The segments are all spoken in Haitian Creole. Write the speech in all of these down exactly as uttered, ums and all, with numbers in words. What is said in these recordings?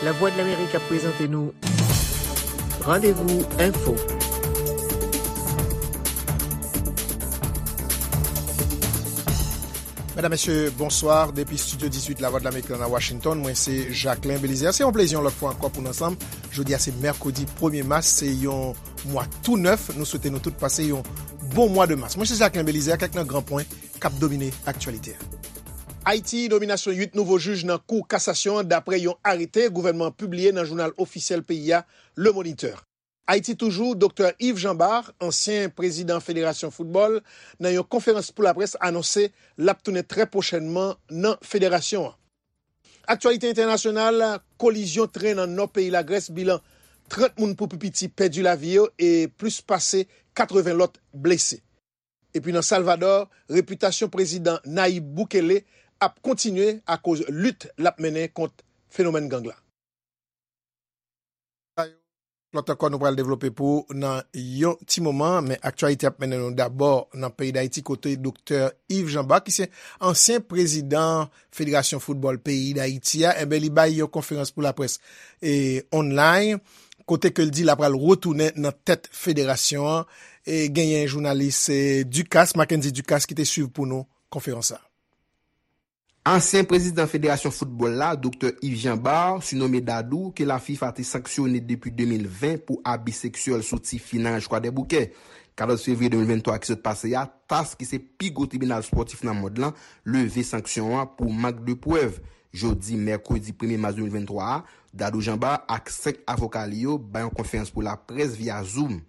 Lavwadlamerik ap prezante nou Randevou Enfo. Medam, mesye, bonswa. Depi estidyo dizuit Lavwadlamerik la nan Washington, mwen se Jacquelin Belizaire. Se yon plezi yon lòt fwa ankò pou n ansanm. Jodi a se mèkredi premye mas, se yon mwa tou nèf. Nou swete nou tout pase yon bon mwa de mas. Mwen se Jacquelin Belizaire, kèk nan gran pwen k ap domine aktyalite a. Ayiti, nominasyon uit nouvo jij nan Kou Kasasyon an, dapre yon arete gouvènman an pibliye nan jounal ofisyèl peyi a, Le Moniteur. Ayiti toujou, Doktè Yves Jean Bart, ansyen prezidan Federasyon Foutbòl, nan yon konferans pou laprès anonse l ap tounen trè pwochènman nan federasyon an. Aktyalite entènasyonal, kolizyon tren nan nò peyi Lagrès, bilan trant moun pou pi piti pèdi lavi yo e plis pase katreven lòt blese. Epi nan Salvadò, repitasyon prezidan Nayib Bukele ap kontinye akoz lit l ap mennen kont fenomèn gang la. Lòt ankò nou pral devlope pou ou nan yon ti moman, men aktyalite ap mennen nou dabò nan peyi Dayiti kote Doktè Yves Jean Bart, ki se ansyen prezidan Federasyon Foutbòl peyi Dayiti a, enben li bay yon konferans pou laprès e online, kote ke l di l ap pral retounen nan tèt federasyon an. E genyen jounalis e, Ducasse, Mackendy Ducasse, ki te swiv pou nou konferans sa. Ansyen prezidan Federasyon Foutbòl la, Doktè Yves Jean Bart, sinome Dadou, ke la FIFA te sanksyone depi de mil ven pou abi seksyèl sou ti fi nan Ranch Kwadèboukè. Katòz fevriye de mil venntwa ki sot pase a, TAS, ki se pi gwo tribinal spòtif nan mond lan, leve sanksyon an pou mank de prèv. Jodi mèkredi premye mas de mil venntwa a, Dadou Jean Bart ak senk avoka li yo bay yon konferans pou laprès via Zoom.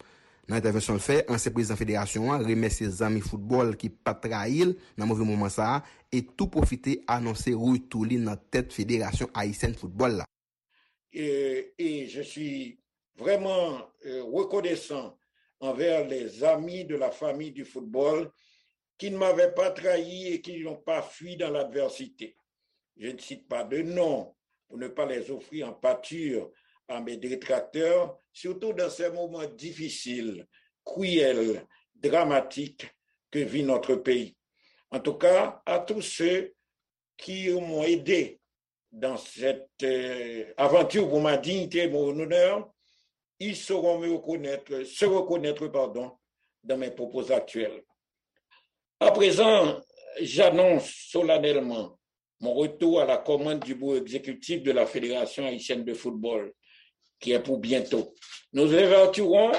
Nan entèvansyon l fè, ansyen prezidan federasyon an remèsye zanmi foutbòl ki pa t trayi l nan move moman sa a e tou pwofite anonse retou li nan tèt Federasyon Ayisyèn Foutbòl la. Et, et je suis vraiment euh, reconnaissant envers les amis de la famille du football qui ne m'avaient pas trahi et qui n'ont pas fui dans l'adversité. Je ne cite pas de nom pour ne pas les offrir en pâture à mes détracteurs, surtout dans ces moments difficiles, cruels, dramatiques que vit notre pays. En tout cas, à tous ceux qui m'ont aidé dans cette euh, aventure pour ma dignité et mon honneur, ils sauront me reconnaître, se reconnaître, pardon, dans mes propos actuels. À présent, j'annonce solennellement mon retour à la commande du bureau exécutif de la Fédération haïtienne de football, qui est pour bientôt. Nous nous évertuerons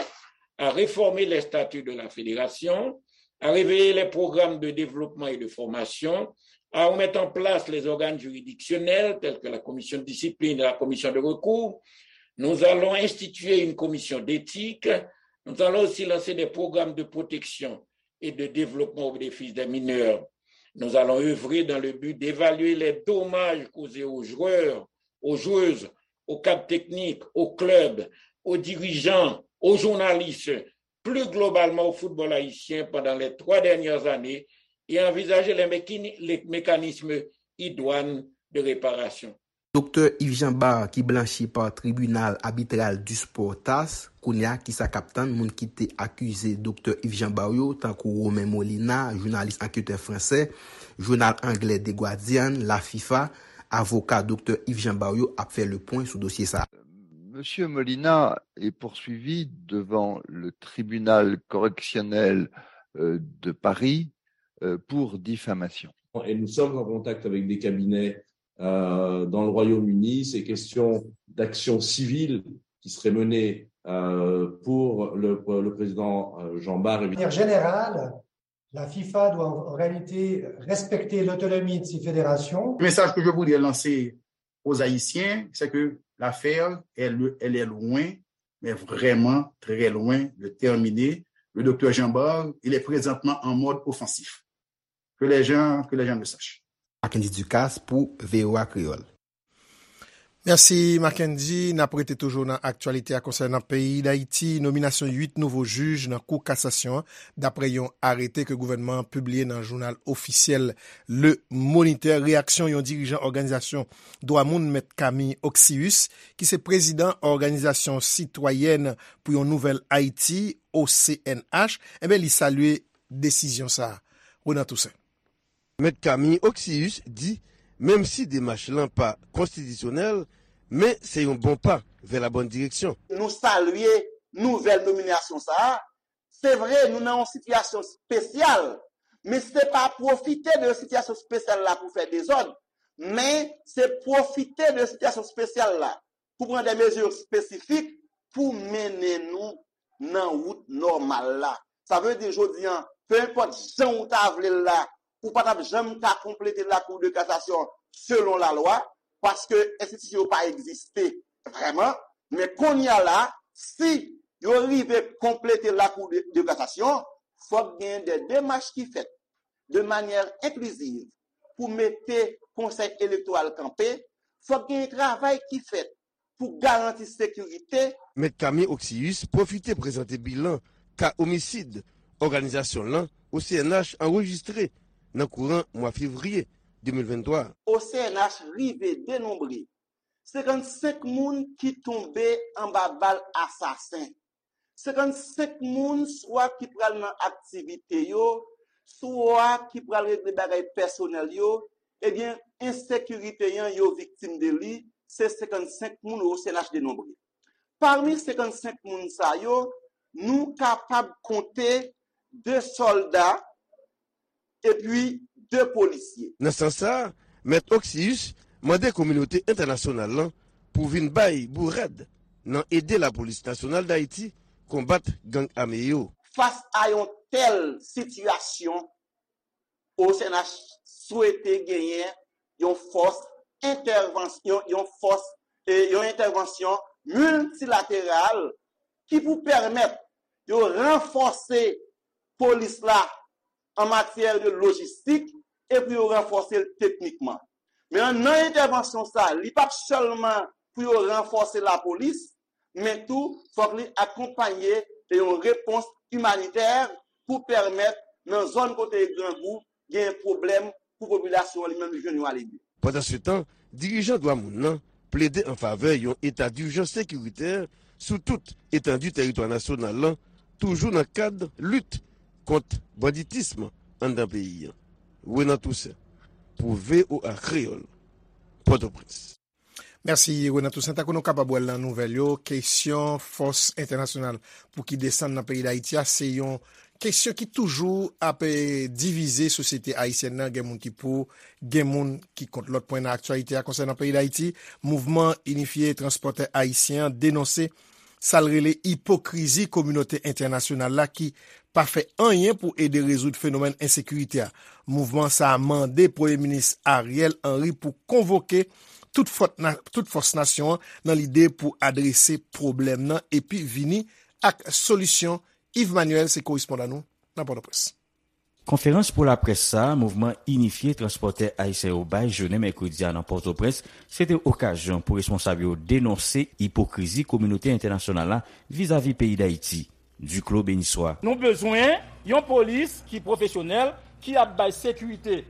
à réformer les statuts de la fédération, à réveiller les programmes de développement et de formation, à remettre en place les organes juridictionnels tels que la commission de discipline et la commission de recours. Nous allons instituer une commission d'éthique. Nous allons aussi lancer des programmes de protection et de développement au bénéfice des mineurs. Nous allons œuvrer dans le but d'évaluer les dommages causés aux joueurs, aux joueuses, aux cadres techniques, aux clubs, aux dirigeants, aux journalistes, plus globalement au football haïtien pendant les trois dernières années et envisager les, mécani- les mécanismes idoines de réparation. Doktè Yves Jean Bart ki blanchi pa Tribinal Abitral du Sport TAS, kounye a kisa k ap tann moun ki te akize Doktè Yves Jean Bart yo, tankou Romain Molina, jounalis anketè fransè, jounal anglè The Guardian, la FIFA, avoka Doktè Yves Jean Bart yo ap fè le pwen sou dosye sa a. Monsieur Molina est poursuivi devant le tribunal correctionnel euh, de Paris euh, pour diffamation. Et nous sommes en contact avec des cabinets euh, dans le Royaume-Uni. Ces questions d'action civile qui seraient menées euh, pour le, le président euh, Jean Bart. De manière générale, la FIFA doit en réalité respecter l'autonomie de ses fédérations. Le message que je voudrais lancer aux Haïtiens, c'est que l'affaire, elle, elle est loin, mais vraiment très loin de terminer. Le docteur Jean Bart, il est présentement en mode offensif. Que les gens, que les gens le sachent. Mackendy Ducasse pour V O A Créole. Mèsi, Mackendy. N ap rete toujou nan aktyalite a konsènan peyi Dayiti. Nominasyon uit nouvo jij nan Kou Kasasyon an, dapre yon arete ke gouvènman an pibliye nan jounal ofisyèl Le Moniteur. Reyaksyon yon dirijan òganizasyon dwa moun, Mèt Camille Oxius, ki se prezidan Òganizasyon Sitwayèn pou yon Nouvèl Ayiti, O C N H, enben, li salye desizyon sa a. Renan Toussaint. Mèt Camille Oxius di, menm si demach lan pa konstitisyonèl, Men se yon bon pa vè la bòn direksyon. Nou salye nouvèl nominasyon sa a. Se vre, nou nan yon sitiyasyon espesyal, men se pa pwofite de sitiyasyon espesyal la pou fè dezòd, men se pwofite de sitiyasyon espesyal la pou pran de mezi espesifik pou mennen nou nan wout nòmal la. Sa vle di jodi a, pe enpòt jan ou ta vle l la, ou pa t ap janm ka konplete lakou de kasasyon selon lalwa, paske enstitisyon yo pa egziste vrèman. Men kounye a la, si yo rive konplete lakou de, de kasasyon, fòk gen de demach ki fèt de manyè enkliziv pou mete konsèy elektoral kanpe, fòk gen travay ki fèt pou garanti sekirite. Mèt Camille Oxius pwofite prezante bilan ka omisid òganizasyon lan O C N H anrejistre nan kouran mwa fevriye de mil venntwa. O C N H rive denonbre senkannsenk moun ki tonbe anba bal asasen. Senkannsenk moun swa ki pral nan aktivite yo, swa ki pral regle bagay pèsonèl yo, ebyen, ensekirite an yo viktim de li, se senkannsenk moun O C N H denonbre. Pami senkannsenk moun sa yo, nou kapab konte de sòlda epi de polisye. Nan sans sa a, Mèt Oxius mande kominote entènasyonal lan pou vin bay bourad nan ede Lapolis Nasyonal Dayiti konbat gang ame yo. Fas a yon tèl sitiyasyon, O C N H swete genyen yon fòs entèvansyon, yon fòs, e, yon entèvansyon miltilateral ki pou pèmèt yo ranfòse polis la an matyè de lojistik e pou yo ranfòse l teknikman. Men nan entèvansyon sa, li p ap sèlman pou yo ranfòse lapolis, men tou fòk li akonpaye de yon repons imanitè pou pèmèt nan zòn kote grangou gen pwoblèm pou popilasyon an li menm li jwenn yon alevye. Pandansetan, dirijan dwa moun nan plede an favè yon eta dijans sekiritè sou tout etandi tèritwa nasyonal lan, toujou nan kad lit kont banditism anndan peyi a. Renan Toussaint, pou V O A Kreyòl, Pòtoprens. Mèsi Renan Toussaint. Tankou nou kapab wè l nan nouvèl yo, kesyon fòs entènasyonal pou ki desann nan peyi Dayiti a se yon kesyon ki toujou ap divize sosyete ayisyèn nan. Gen moun ki pou, gen moun ki kont. Lòt pwen nan aktyalite a konsènan peyi Dayiti, Mouvman Inifye Transpòtè Ayisyen an denonse sa l rele ipokrizi kominote entènasyonal la ki pa fè anyen pou ede rezoud fenomèn ensekirite a. Mouvman sa a mande Premye Minis Ariel Henry pou konvoke tout fòs nasyon an nan lide pou adrese pwoblèm nan epi vini ak solisyon. Yves Manuel se korespondan nou nan Pòtoprens. Konferans pou laprès sa a Mouvman Inifye Transpòtè Ayisyen yo bay jounen mèkredi a nan Pòtoprens, se te okazyon pou responsab yo denonse ipokrizi kominote entènasyonal la vizavi peyi Dayiti. Duclos Benissoit. Nou bezwen yon polis ki pwofesyonèl, ki ap bay sekirite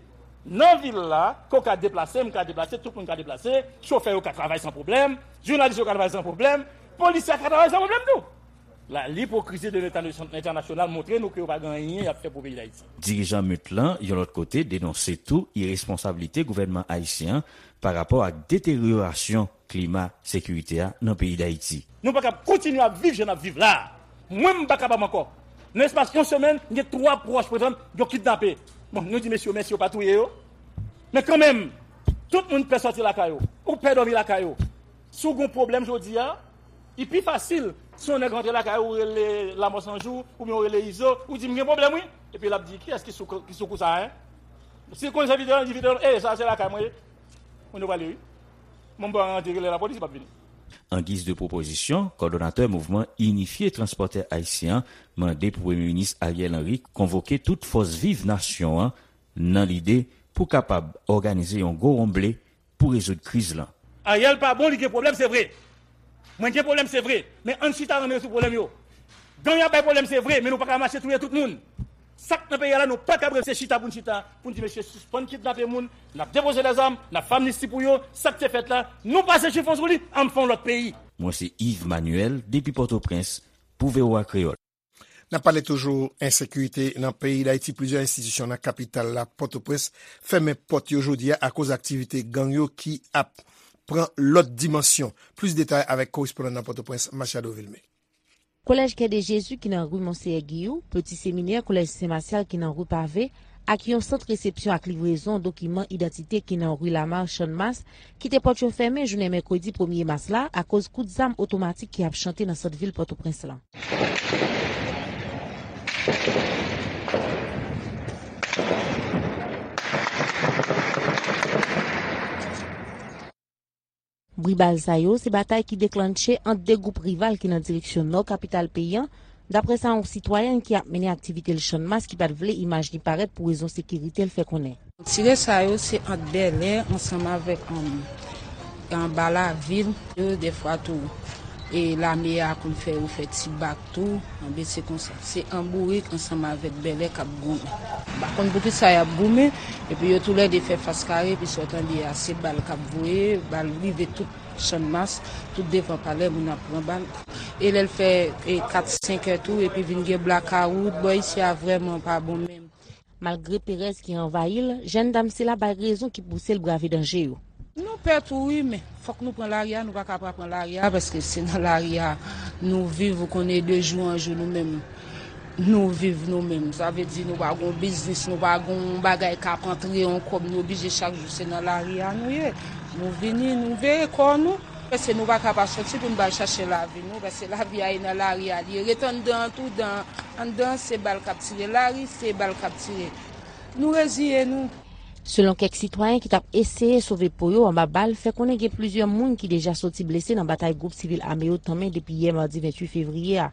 nan vil la, ke w ka deplase, m ka deplase, tout moun ka deplase, chofè yo ka travay san pwoblèm, jounalis yo ka travay san pwoblèm, polisye a ka travay san pwoblèm tou. La, lipokrizi de leta entènasyonal montre nou ke yo pa gen anyen y ap fè pou peyi Dayiti. Dirijan MUT lan, yon lòt kote, denonse tou iresponsablite gouvènman ayisyen an pa rapò ak deteryorasyon klima sekirite a nan peyi Dayiti. Nou pa kab kontinye ap viv jan n ap viv la a. Mwen, m pa kapab ankò. Nan espas yon semèn, m gen twa pwòch, pa egzanp, yo kidnape. Bon, nou di mesye yo mèsi yo pa touye yo. Men kanmenm, tout moun pè sòti lakay yo. Ou pè dòmi lakay ou. Si w gen yon pwoblèm jodi a, li pi fasil si yon nèg rantre lakay ou, ou rele Lanmò San Jou, oubyen ou rele Izo, ou di, "M gen pwoblèm, wi." Epi l ap di, "Kiyès ki sou, ki sou kou sa a, en?" Si l konn se Vitelòm, li di, "Vitelòm, e, sa a se lakay mwen ye." Moun yo prale, wi. Moun pa rantre rele lapolis, li p ap vini. An giz de pwopozisyon, kòdonatè Mouvman Inifye Transpòtè Ayisyen an mande pou Premye Minis Ariel Henry konvoke tout fòs viv nasyon an nan lide pou kapab òganize yon gwo wonble pou rezoud kriz lan. Ariel pa bon, li gen pwoblèm, se vre. Mwen gen pwoblèm, se vre. Men ann chita, ann rezoud pwoblèm yo. Gang ap bay pwoblèm, se vre, men nou pa ka mache touye tout moun. Sa k nan peyi a la, nou pa kab rete chita pou n chita, pou n di mesye sispann kidnape moun, n ap depoze lèzam, n ap fè amnisti pou yo, sa k te fèt la, nou pase chifon sou li, ann fè yon lòt peyi. Mwen se Yves Manuel, depi Pòtoprens, pou V O A Kreyòl. N ap pale toujou ensekirite nan peyi Dayiti. Plizyè enstitisyon nan kapital la, Pòtoprens, fèmen pòt yo jodi a akoz aktivite gang yo ki ap pran lòt dimansyon. Plis detay avèk korespondan nan Pòtoprens, Machado Vilmé. Kolèj Kè de Jezi ki nan ri Monseyè Giyou, Peti Seminè, Kolèj Sen Masyal ki nan ri Pave, ak yon sant resepsyon ak livrezon dokiman idantite ki nan ri Lamar Channmas, kite pòt yo fèmen jounen mèkredi premye mas la akoz kout zam otomatik ki ap chante nan sant vil Pòtoprens lan. Bri bal sa yo, se batay ki deklannche ant de gwoup rival ki nan direksyon nò kapital peyi an, daprè sa yon sitwayèn ki ap mennen aktivite l Channmas ki pa t vle imaj li parèt pou rezon sekirite l fè konnen. Tire sa yo, se ant Bèlè ansanm avèk, um, anba lavil. Yo, dèfwa tou, e lame a konn fè yo fè ti bak tou, anben se konsa. Se Anbourik ansanm avèk Bèlè k ap goumen. M pa konn poukisa y ap goumen, epi yo toulède fè fas kare, epi sa w tande a, se bal k ap voye, bal rive tout Channmas, tout devan palè, moun ap pran bal. E lè l fè, e, kat, senk è tou, epi vin gen blakawout, bò isi a vrèman pa bon menm. Malgre perèz ki anvayi l, jèn dam sila bay rezon ki pouse l brave danje yo. Nou pè tou wi, men fòk nou pran lari a, nou pa ka pa pran lari a, paske se nan lari a nou viv, ou konnen de jou an jou nou menm, nou viv nou menm. Sa vle di nou pa gon biznis, nou pa gon bagay k ap antre yon kòb, nou oblije chak jou se nan lari a nou ye. Nou vini, nou veye kò nou, paske nou pa ka pa sòti pou n pa al chache lavi nou, paske lavi a e nan lari a li ye. Ret anndan an tou, dan, anndan se bal k ap tire, lari se bal k ap tire. Nou reziye nou. Selon kèk sitwayen ki t ap eseye sove po yo anba bal, fè konnen gen plizyè moun ki deja soti blese nan batay gwoup sivil ame yo tanmen depi yè madi venntuit fevriye a.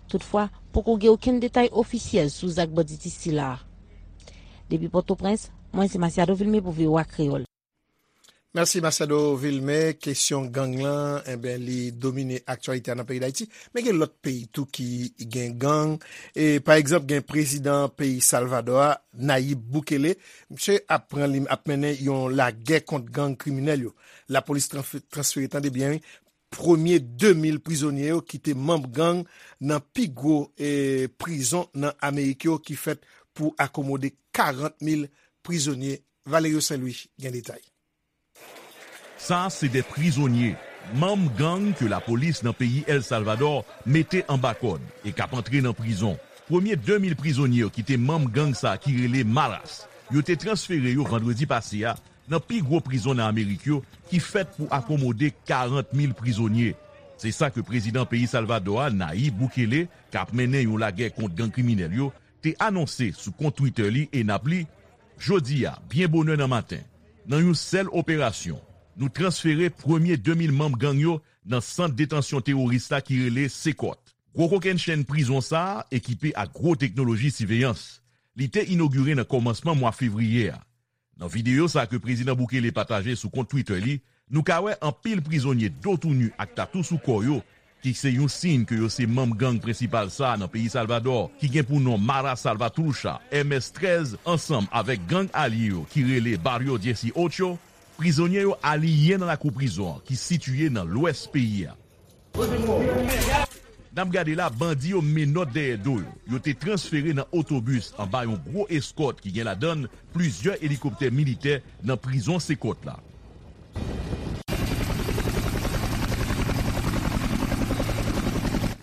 Toutfwa, poko gen okenn detay ofisyèl sou zak banditis sila a. Depi Pòtoprens, mwen se Masiado Vilmé pou V O A Kreyòl. Mèsi, Masiado Vilmé. Kesyon gang lan, enben, li domine aktyalite a nan peyi Dayiti. Men gen lòt peyi tou ki gen gang. E, pa egzanp, gen prezidan peyi Salvadò a, Nayib Bukele. Misye ap pran li, ap mennen yon lagè kont gang kriminèl yo. Lapolis transfe-, transfere, tande byen, wi, premye de mil prizonye yo ki te manm gang nan pi gwo, e, prizon nan Amerik yo ki fèt pou akomode karant mil prizonye. Valerio Saint Louis gen detay. Sa se de prizonye, manm gang ke lapolis nan peyi El Salvador mete anba kòd e k ap antre nan prizon. Premye de mil prizonye yo ki te manm gang sa ki rele Maras, yo te transfere yo vandredi pase a nan pi gwo prizon nan Amerik yo ki fèt pou akomode karant mil prizonye. Se sa ke prezidan peyi Salvador a, Nayib Bukele, k ap mennen yon lagè kont gang kriminèl yo, te anonse sou kont Twitter li e n ap li, jodi a, byen bonè nan maten, nan yon sèl operasyon, nou transfere premye de mil manm gang yo nan sant detansyon teworis la ki rele Sekòt. Gwo kokennchenn prizon sa a ekipe ak gwo teknoloji siveyans. Li te inogire nan kòmansman mwa fevriye a. Nan videyo sa ke prezidan Bukele pataje sou kont Twitter li, nou ka wè anpil prizonye do tou ni ak tatou sou kò yo, ki se yon siy ke yo se manm gang prensipal sa a nan peyi Salvadò, ki gen pou non Mara Salvatrucha, M S trèz, ansanm avèk gang alye yo ki rele Barrio Dieciocho. Prizonye yo aliyen nan lakou prizon an ki sitiye nan lwès peyi a. N ap gade la, bandi yo menòt dèyè do yo. Yo te transfere nan otobis anba yon gwo eskòt ki gen ladan l plizyè elikoptè militè nan prizon Sekòt la.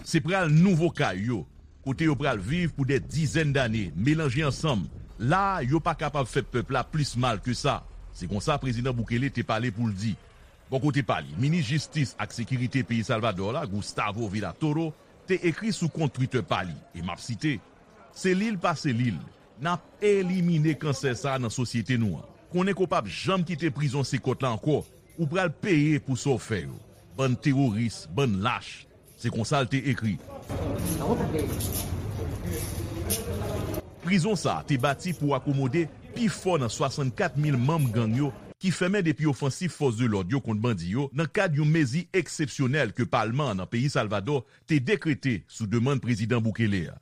Se pral nouvo kay yo, kote yo pral viv pou dè dizèn dane, melanje ansanm. La a, yo pa kapab fè pèp la plis mal ke sa. Se konsa prezidan Bukele te pale pou l di. Bò kote pa li, minis jistis ak sekirite peyi Salvadò la, Gustavo Villatoro, te ekri sou kont Twitter pa li, e m ap site, "Se li l pa se li l, n ap elimine kansè sa a nan sosyete nou an. Konnen ke w p ap janm kite prizon Sekòt la ankò, ou pral peye pou sa w fè yo. Bann teworis, bann lach." Se konsa l te ekri. Prizon sa a te bati pou akomode pi fò nan swasannkat mil manm gang yo ki fèmen depi ofansif fòs de lòd yo kont bandi yo nan kad yon mezi eksepsyonèl ke palman an nan peyi Salvadò te dekrete sou demann prezidan Bukele a.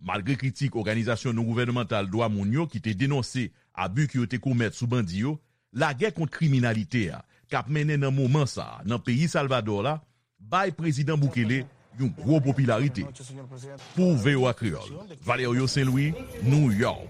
Malgre kritik òganizasyon non-gouvènmantal dwa moun yo ki te denonse abi ke yo te komèt sou bandi yo, lagè kont kriminalite a k ap mennen nan moman sa a nan peyi Salvadò la bay prezidan Bukele yon gwo popilarite. Pou V O A Kreyòl, Valerio Saint Louis, New York.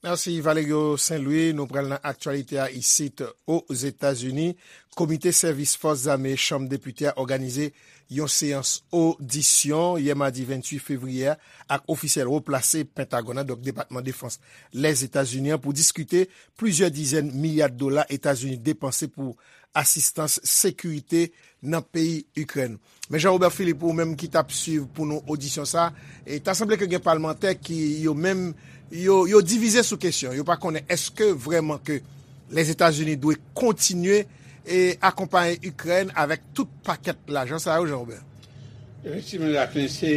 Mèsi, Valerio Saint-Louis. Nou pral nan aktyalite a isit Ozetazini. Komite Sèvis Fòs Zame Chanm Depite a òganize yon seyans odisyon yè madi venntuit fevriye a ak ofisyèl wo plase Pentagòn nan, donk Depatman Defans Lèzetazini an, pou diskite plizyè dizèn milya dola Etazini depanse pou asistans sekirite nan peyi Ikrèn. Men Jean Robert Philippe, ou menm ki t ap swiv pou nou odisyon sa, e ta sanble ke gen palmantè ki yo menm, yo, yo divize sou kesyon. Yo pa konnen èske vrèman ke Lèzetazini dwe kontinye e akonpaye Ikrèn avèk tout pakèt lajan sa yo, Jean Robert? Efektivman, Jacqueline, se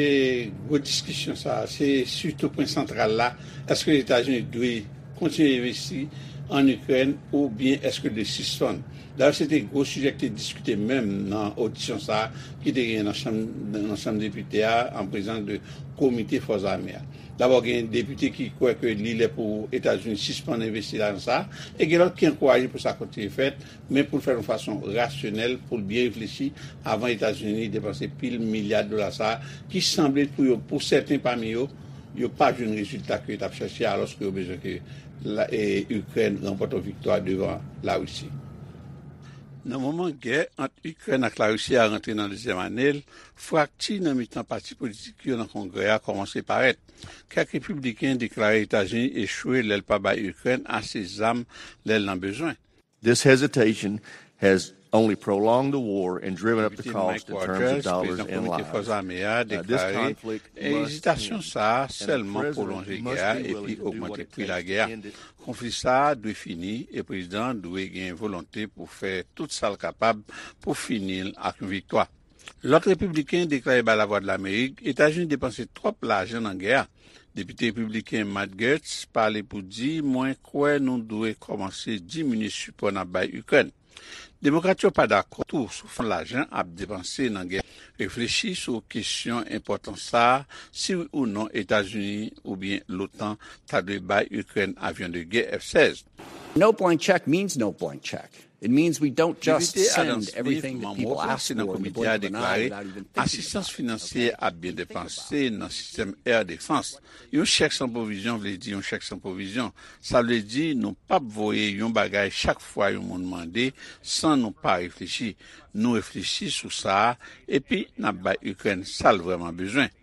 gwo diskisyon sa, se sitou pwen santral la. Èske Etazini dwe kontinye envesti an Ikrèn oubyen èske l dwe sispann? Dayè, se te gwo sijè ki te diskite menm nan odisyon sa ki te genyen nan chanm, nan chanm depite a, an prezans de komite fòs ame a. Dabò, gen depite ki kwè ke li lè pou Etazini sispann envesti lajan sa, e gen lòt ki ankouraje pou sa kontinye fèt, men pou l fè l yon fason rasyonèl, pou l byen reflechi avan Etazini depanse pil milya dola sa a, ki sanble pou yo, pou sèten pami yo, yo pa jwenn rezilta ke yo t ap chache, alòske yo bezwen ke la, e, Ikrèn ranpòte yon viktwa devan Larisi. Nan moman gè ant Ikrèn ak Larisi a rantre nan dezyèm ane l, frakti nan mitan pati politik yo nan Kongrè a kòmanse parèt. Kèk repibliken deklare Etazini echwe lè l pa bay Ikrèn ase zam lè l nan bezwen. This hesitation has only prolonged the war and driven up the cost in terms of dollars and lives. Depite Mike Rogers, prezidan Komite Fòs Ame a, deklare ezitasyon sa a sèlman pwolonje gè a epi ogmante pri lagè a. Konfli sa a dwe fini e prezidan an dwe gen volonte pou fè tout sa l kapab pou fini l ak yon viktwa. Lòt repibliken deklare bay Lavwadlamerik Etazini depanse twòp lajan nan gè a. Depite repibliken Matt Gaetz pale pou di, mwen kwè nou dwe kòmanse diminye sipò n ap bay Ikrèn. Demokrat yo pa dakò tou sou fason lajan ap depanse nan gè a. Reflechi sou kesyon enpòtan sa a, si wi ou non Etazini oubyen l'OTAN ta dwe bay Ikrèn avyon de gè F sèz. No blank check means no blank check. It means we don't just send everything that people ask for in the blink of an eye without even thinking about it. Depite Adams Smith, manm wo Konsèy nan Komite a, deklare asistans finansyè ap byen depanse nan sistèm air defense. Yon chèk san pwovizyon vle di yon chèk san pwovizyon. Sa vle di nou p ap voye yon bagay chak fwa yon moun mande san nou pa reflechi. Nou reflechi sou sa a, epi n ap bay Ikrèn sa l vrèman bezwen.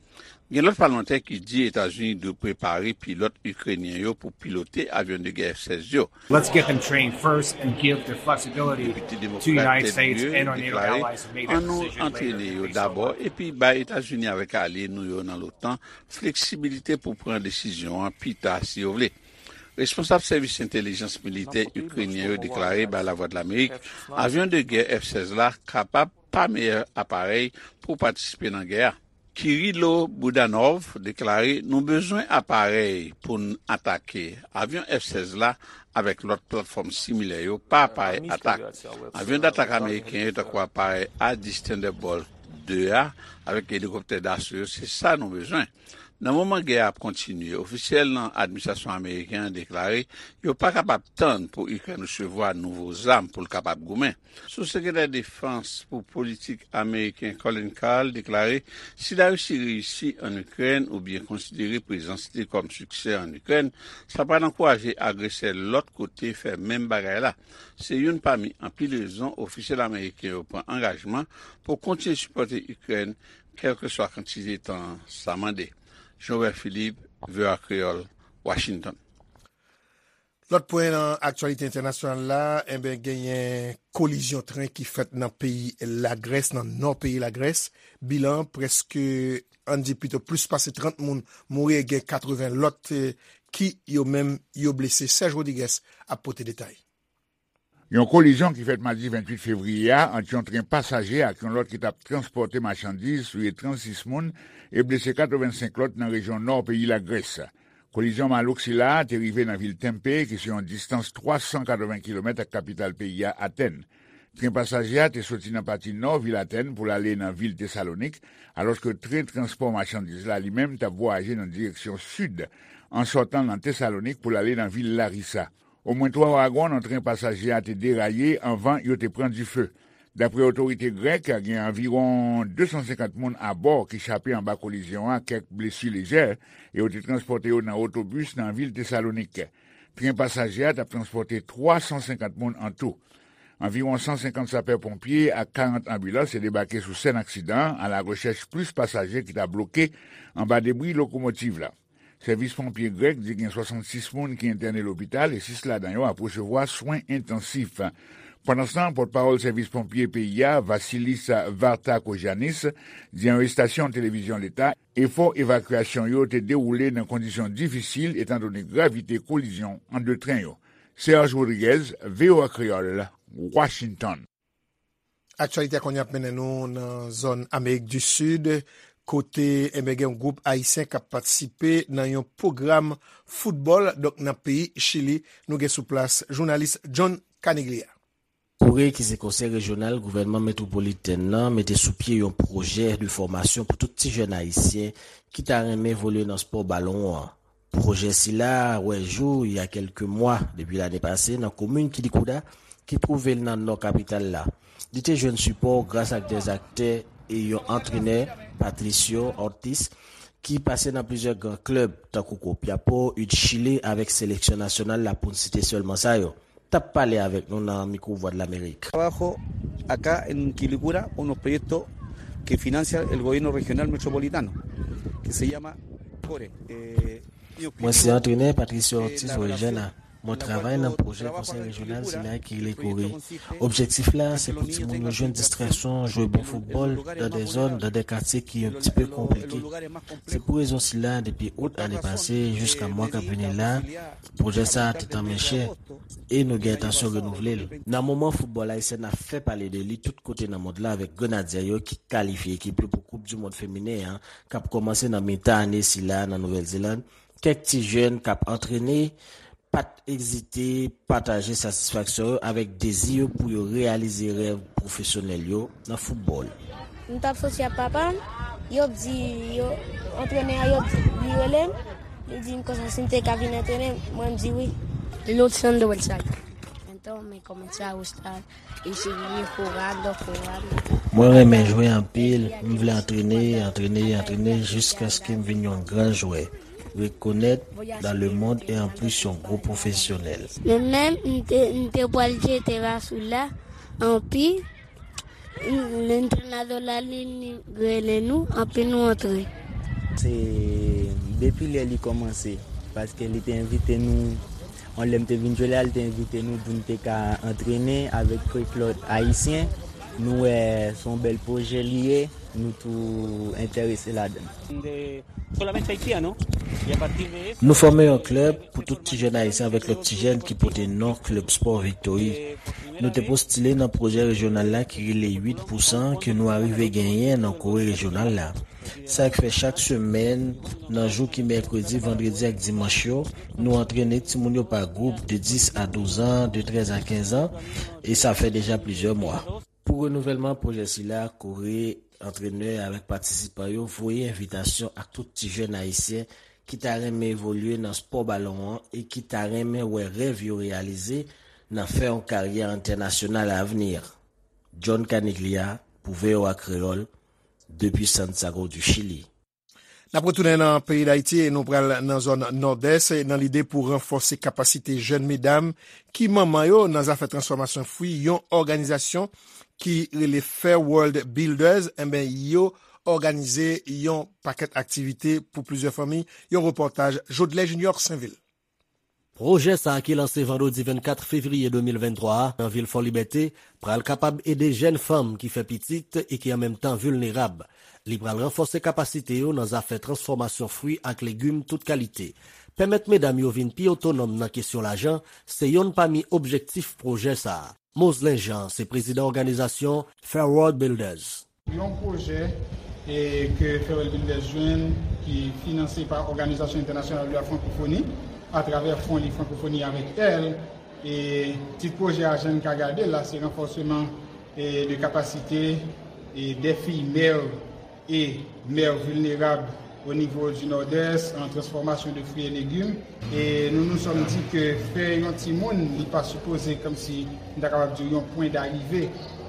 Gen lòt palmantè ki di Etazini dwe prepare pilòt ikrenyen yo pou pilote avyon de gè F sèz yo. Let's get them trained first and give the flexibility to United States and our NATO allies to make that decision later based on what. Depite Demokrat Ed Muir deklare, ann nou antrene yo dabò, epi bay Etazini avèk alye nou yo nan l'OTAN fleksibilite pou pran desizyon an pita si yo vle. Responsab sèvis entèlijans militè ikrenyen yo deklare bay Lavwadlamerik avyon de gè F sèz la kapab pa meyè aparèy pou patisipe nan gè a. Kirilo Budanov deklare, nou bezwen aparèy pou n atake. Avyon F sèz la avèk lòt platfòm similè yo pa aparèy atak. Avyon datak ameriken yo tankou aparèy A dis Thunderbolt de a avèk elikoptè daso yo, se sa nou bezwen. Nan moman gè a ap kontinye, ofisyèl nan administrasyon ameriken an deklare yo pa kapab tann pou Ikrèn resevwa nouvo zam pou l kapab goumen. Sou-sekretè defans pou politik ameriken Colin Kahl deklare, si Larisi reyisi ann Ikrèn oubyen konsidere prezans li kòm siksè ann Ikrèn, sa pral ankouraje agresè lòt kote fè menm bagay la. Se youn pami anpil rezon ofisyèl ameriken yo pran angajman pou kontinye sipòte Ikrèn kèlkeswa kantite tan sa mande. Jean Robert Philippe, V O A Kreyòl, Washington. Lòt pwen nan aktyalite entènasyonal la, enben, genyen kolizyon tren ki fèt nan peyi Lagrès, nan nò peyi Lagrès. Bilan an, prèske, ann di pito, plis pase trant moun mouri e gen katreven lòt, eh, ki yo menm yo blese. Serge Rodriguez ap pote detay. Yon kolizyon ki fèt madi venntuit fevriye a ant yon tren pasaje ak yon lòt ki t ap transpòte machandiz touye trannsis moun e blese katrevensenk lòt nan rejyon nò peyi Lagrès. Kolizyon malouk sila a te rive nan vil Tempe, ki se yon distans twa san katreven kilomèt ak kapital peyi a, Atèn. Tren pasaje a te soti nan pati nò vil Atèn pou l ale nan vil Tesalonik, alòske tren transpò machandiz la, li menm, t ap vwayaje nan direksyon sid, an sòtan nan Tesalonik pou l ale nan vil Larisa. Omwen twa wagon nan tren pasaje a te deraye anvan yo te pran dife. Daprè otorite grèk, gen anviwon de san senkant moun abò ki chape anba kolizyon an, kèk blesi lejè, e yo te transpòte yo nan otobis nan vil Tesalonik. Tren pasaje a t ap transpòte twa san senkant moun antou. Anviwon san senkant sapè ponpye ak karant anbilans te debake sou sèn aksidan an, alarechèch plis pasaje ki ta bloke anba debri lokomotiv la. Sèvis ponpye grèk di gen swasannsis moun ki entène lopital e sis ladan yo ap resevwa swen entansif. Pandanstan, pòtpawòl sèvis ponpye peyi a, Vasilis Vartakogiannis, di yon estasyon televizyon leta, efò evakyasyon yo te dewoule nan kondisyon difisil etandone gravite kolizyon ant de tren yo. Serge Rodriguez, V O A Kreyòl, Washington. Aktyalite a kounye a ap mennen nou nan zòn Amerik di Sid, kote, enben, gen yon gwoup ayisyen k ap patisipe nan yon pwogram foutbòl, donk nan peyi Chili. Nou gen sou plas jounalis John Caniglia. Koure, ki se konsèy rejyonal gouvènman metwopolitèn nan, mete sou pye yon pwojè de fòmasyon pou tout ti jèn ayisyen ki ta renmen evolye nan spò balon an. Pwojè sila wè jou il y a quelques mois depi lane pase nan komin Quilicura, ki twouve l nan nò kapital la. Li te jwenn sipò gras ak dè aktè e yon antrenè, Patricio Ortiz, ki pase nan plizyè gran klèb, tankou Copiapó, U D Chile, avèk seleksyon nasyonal la, pou n site sèlman sa yo. T ap pale avèk nou nan mikwo Vwadlamerik. Trabajo acá en Quilicura unos proyectos que financia el gobierno regional metropolitano, que se llama Core. Eh, mi Mwen se objetivo antrenè Patricio es Ortiz la Orellana. Relación Mwen travay nan pwojè konsèy rejyonal sila ki rele Kore. Objektif la, se pou timoun yo jwenn distraksyon, jwe bon foutbòl, dan de zòn, dan de katye ki yon ti pe konplike. Se pou rezon sila, depi out ane pase, jiska mwa k ap vini la, pwojè sa a te tanmen chè, e nou gen entansyon renouvle l. Nan moman foutbòl ayisyen ap fè pale de li tout kote nan mond la avèk Grenadye yo ki kalifye ekip yo pou Koup di Mond Feminen an, k ap kòmanse nan mitan ane sila nan Nouvèl Zeland, kèk ti jèn k ap antrene pa t ezite pataje satisfaksyon yo avèk dezi yo pou yo reyalize rèv pwofesyonèl yo nan foutbòl. M t ap soti ak papa m, yo di, yo, antrenè a, yo di, li rele m, li di m konsa si m te ka vin antrene, mwen m di wi. Luciano Del Valle. Entonces comencé a gustar y seguí jugando, jugando. Mwen renmen jwe anpil, m vle antrene, antrene, antrene jiskaske m vin yon gran jwè, rekonèt dans le monde e anplis yon gwo pwofesyonèl. Men menm m te, m te pral jete rasou la, anpi, m, lentrenadò la li, li rele nou, anpi nou antre. Se depi lè li kòmanse, paske li te envite nou, yon lè m te vin jwe la, li te envite nou pou n te ka antrene avèk kèk lòt ayisyen. Nou wè se yon bèl pwojè li ye, nou tou enterese ladan l. Nou fòme yon klèb pou tout ti jèn ayisyen avèk lòt ti jèn ki pote non Klèb Spò Viktori. Nou te postile nan pwojè rejyonal la ki rele uit pou san ke nou arive genyen nan Kore rejyonal la. Sa k fè chak semèn, nan jou ki mèkredi, vandredi ak dimanch yo, nou antrene timoun yo pa gwoup de dis a douz an, de trèz a kenz an, e sa fè deja plizyè mwa. Pou renouvèlman pwojè sila, Kore, antrenè avèk patisipan yo voye envitasyon ak tout ti jèn ayisyen ki ta renmen evolye nan spò balon an e ki ta renmen wè rèv yo reyalize nan fè yon karyè entènasyonal avni. John Caniglia pou V O A Kreyòl, depi Santiago du Chili. N ap retounen nan peyi Dayiti e nou pral nan zòn Nòdès nan lide pou ranfòse kapasite jèn medam ki manman yo nan zafè transfòmasyon fwi. Yon òganizasyon ki rele Fair World Builders, enben, yo òganize yon pakèt aktivite pou plizyè fanmi. Yon repòtaj Jodlè Junior Sainvil. Pwojè sa a ki lanse vandredi vennkat fevriye de mil venntwa a nan vil Fòlibète pral kapab ede jèn fanm ki fè pitit e ki an menm tan vilnerab. Li pral ranfòse kapasite yo nan zafè transfòmasyon fwi ak legim tout kalite. Pèmèt medam yo vin pi otonòm nan kesyon lajan se yonn pami objektif pwojè sa a. Moselin Jean se prezidan òganizasyon Fair World Builders. Yon pwojè, e, ke Fair World Builders jwenn, ki finanse pa Òganizasyon Entènasyonal de la Frankofoni, atravè Fon Li Frankofoni avèk L. E tit pwojè a, jan n ka gade l la, se ranfòseman, e, de kapasite, e, dè fiy mè e mè vilnerab o nivo di Nòdès, an transfòmasyon de fwi e legim. E nou nou sòm di ke fè yon timoun, li pa sipoze kòmsi, m ta kapab di, yon pwen darive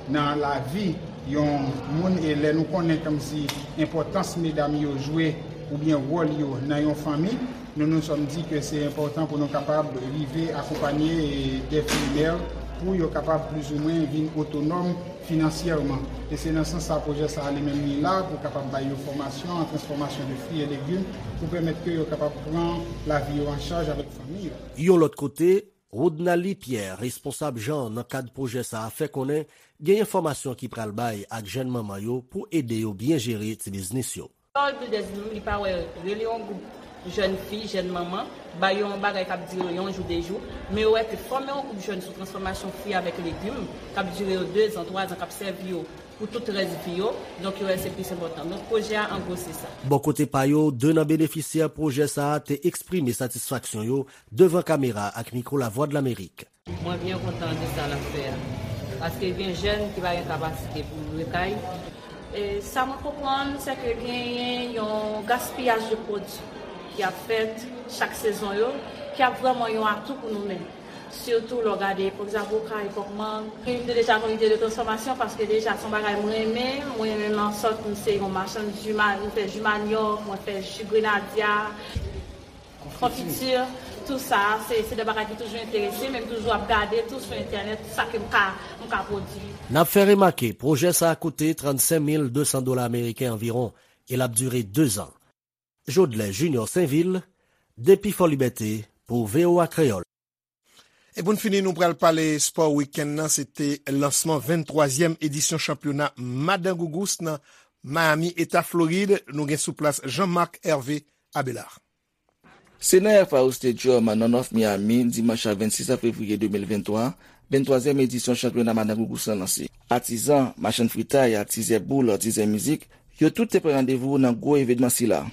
nan lavi yon moun. E lè nou konnen kòmsi enpòtans medam yo jwe oubyen wòl yo nan yon fanmi, Nous nous sommes dit que c'est important pour nous capables de arriver à accompagner des filmeurs pour yo kapab plizoumwen vin otonòm finansyèman. E se nan sans sa pwojè sa a li menm li la pou kapab bay yo fòmasyon an transfòmasyon de fwi e legim pou pèmèt ke yo kapab pran lavi yo an chaj avèk fanmi yo. Yon lòt kote, Rodnaly Pierre, responsab jan nan kad pwojè sa a, fè konnen genyen fòmasyon ki pral bay ak jèn manman yo pou ede yo byen jere ti biznis yo. Paul Builders li menm, li pa wè rele yon gwoup jèn fi, jèn manman, ba yo yon bagay k ap dire yo yon jou, de jou, men yo wè ke fòme yon gwoup jèn sou transfòmasyon fwi avèk legim, k ap dire yo dezan, twazan, k ap sèvi yo pou tout rès vi yo, donk yo wè se plis enpòtan. Donk pwojè a, an gwo, se sa. Bò kote pa yo, de nan benefisyè pwojè sa a te eksprime satisfaksyon yo devan kamera ak mikwo Lavwadlamerik. Mwen byen kontan de sa l ap fè a, paske gen jèn ki pa gen kapasite pou l lwe kay. E sa mwen konprann, se ke genyen yon gaspiyaj de pwodui ki ap fèt chak sezon yo, ki ap vrèman yon atou pou nou menm. Sitou lè w gade, pa egzanp, okay, kòk mang. Mwen te deja nan lide de transfòmasyon, paske deja se yon bagay mwen renmen. Mwen renmen nan sòt, mwen se yon machann ji ma-, mwen fè ji manyòk, mwen fè ji grenadya. Konfiti, tou sa, se, se de bagay ki toujou enterese, men m toujou ap gade tou sou entènèt sa ke m ka, m ka pwodui. N ap fè remake, pwojè sa a koute trannsenk mil de san dola ameriken anviwon, e l ap dire dezan. Jodlè Junior Sainvil, depi Fòlibète, pou V O A Kreyòl. E pou n fini, nou pral pale spò wikenn nan. Se te lansman venntwazyèm edisyon chanpyona Madan Gougous nan Miami, Eta Florid. Nou gen sou plas Jean Marc Hervé Abelard. Se nan F I U Stadium nan North Miami, dimanch vennsis fevriye de mil venntwa, venntwazyèm edisyon chanpyona Madan Gougous lan lanse. Atizan, machann fritay, atizè boul, atizè mizik, yo tout te pran randevou nan gwo evènman sila.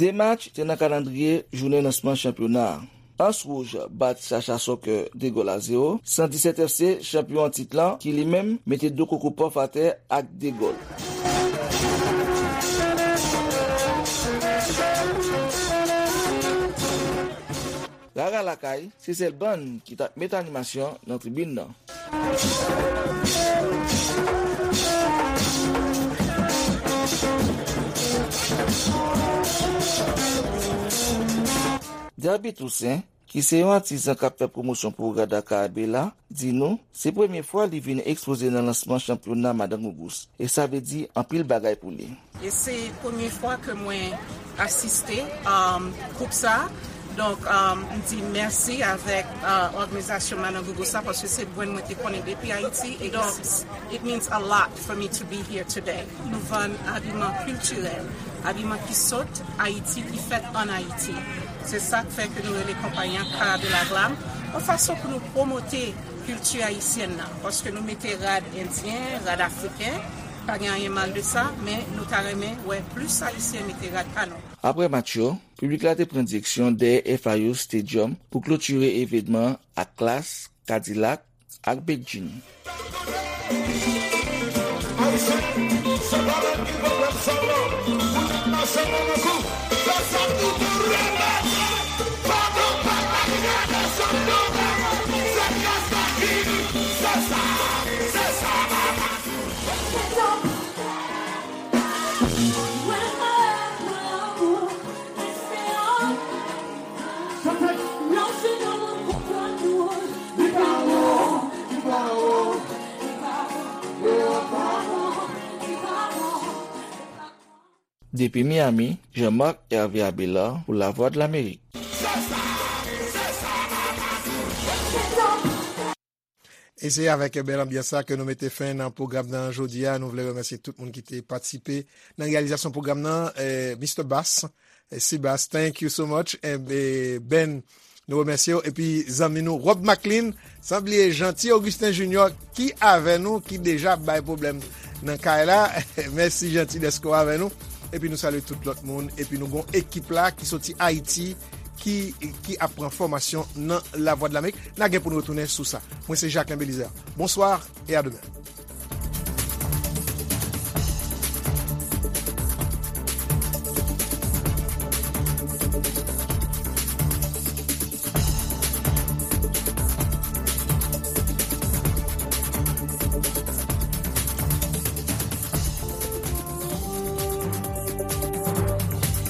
De match te nan kalandriye jounen lansman chanpyona a. Anse Rouge bat Chacha Soccer de gòl a zewo, san disèt F C, chanpyon an tit lan, ki li menm mete Doko Kopòf atè ak de gòl. Rara Lakay, se sèl bann ki t ap met animasyon nan tribin nan. Derby Toussaint, ki se yon atizan k ap fè pwomosyon pou Rara Lakay Abela, di nou se premye fwa li vin ekspoze nan lansman chanpyona Madan Gougous, e sa vle di anpil bagay pou li. E se premye fwa ke mwen asiste, um, koup sa. Donk, um, m di mèsi avèk, uh, òganizasyon Madan Gougous sa, paske se brand mwen te konnen depi Ayiti. E donk, it means a lot for me to be here today. Nou vann abiman kiltirèl, abiman ki sot Ayiti, ki fèt ann Ayiti. Se sa k fè ke nou rele konpayi an Cara de la Glam, yon fason pou nou pwomote kilti ayisyèn nan, paske nou mete rad endyen, rad afriken, pa gen anyen mal de sa, men nou ta renmen wè plis Ayisyen mete rad pa nou. Apre match yo, piblik la te pran direksyon dèyè F I U Stadium pou klotire evènman an ak Klass, Kadilak ak Bedjine. Depi Miami, Jean-Marc Hervé Abelard pou Lavwadlamerik. E se avèk bèl anbyans sa ke nou mete fen nan pwogram nan jodi a. Nou vle remèsye tout moun ki te patisipe nan reyalizasyon pwogram nan. Eh, Mister Bass, eh, Sebas, thank you so much. Eh, eh, Ben, nou remèsye w. Epi zanmi nou, Rob Maclean, san bliye Jeanty Augustin Junior ki avè nou, ki deja bay pwoblèm nan kay la. Mèsi Jeanty dèske w avè nou. Epi nou salye tout lòt moun. Epi nou gon ekip la ki soti Ayiti, ki, ki ap pran fòmasyon nan Lavwadlamerik. N a gen pou n retounen sou sa. Mwen se Jacquelin Belizaire. Bonsoir et à demain.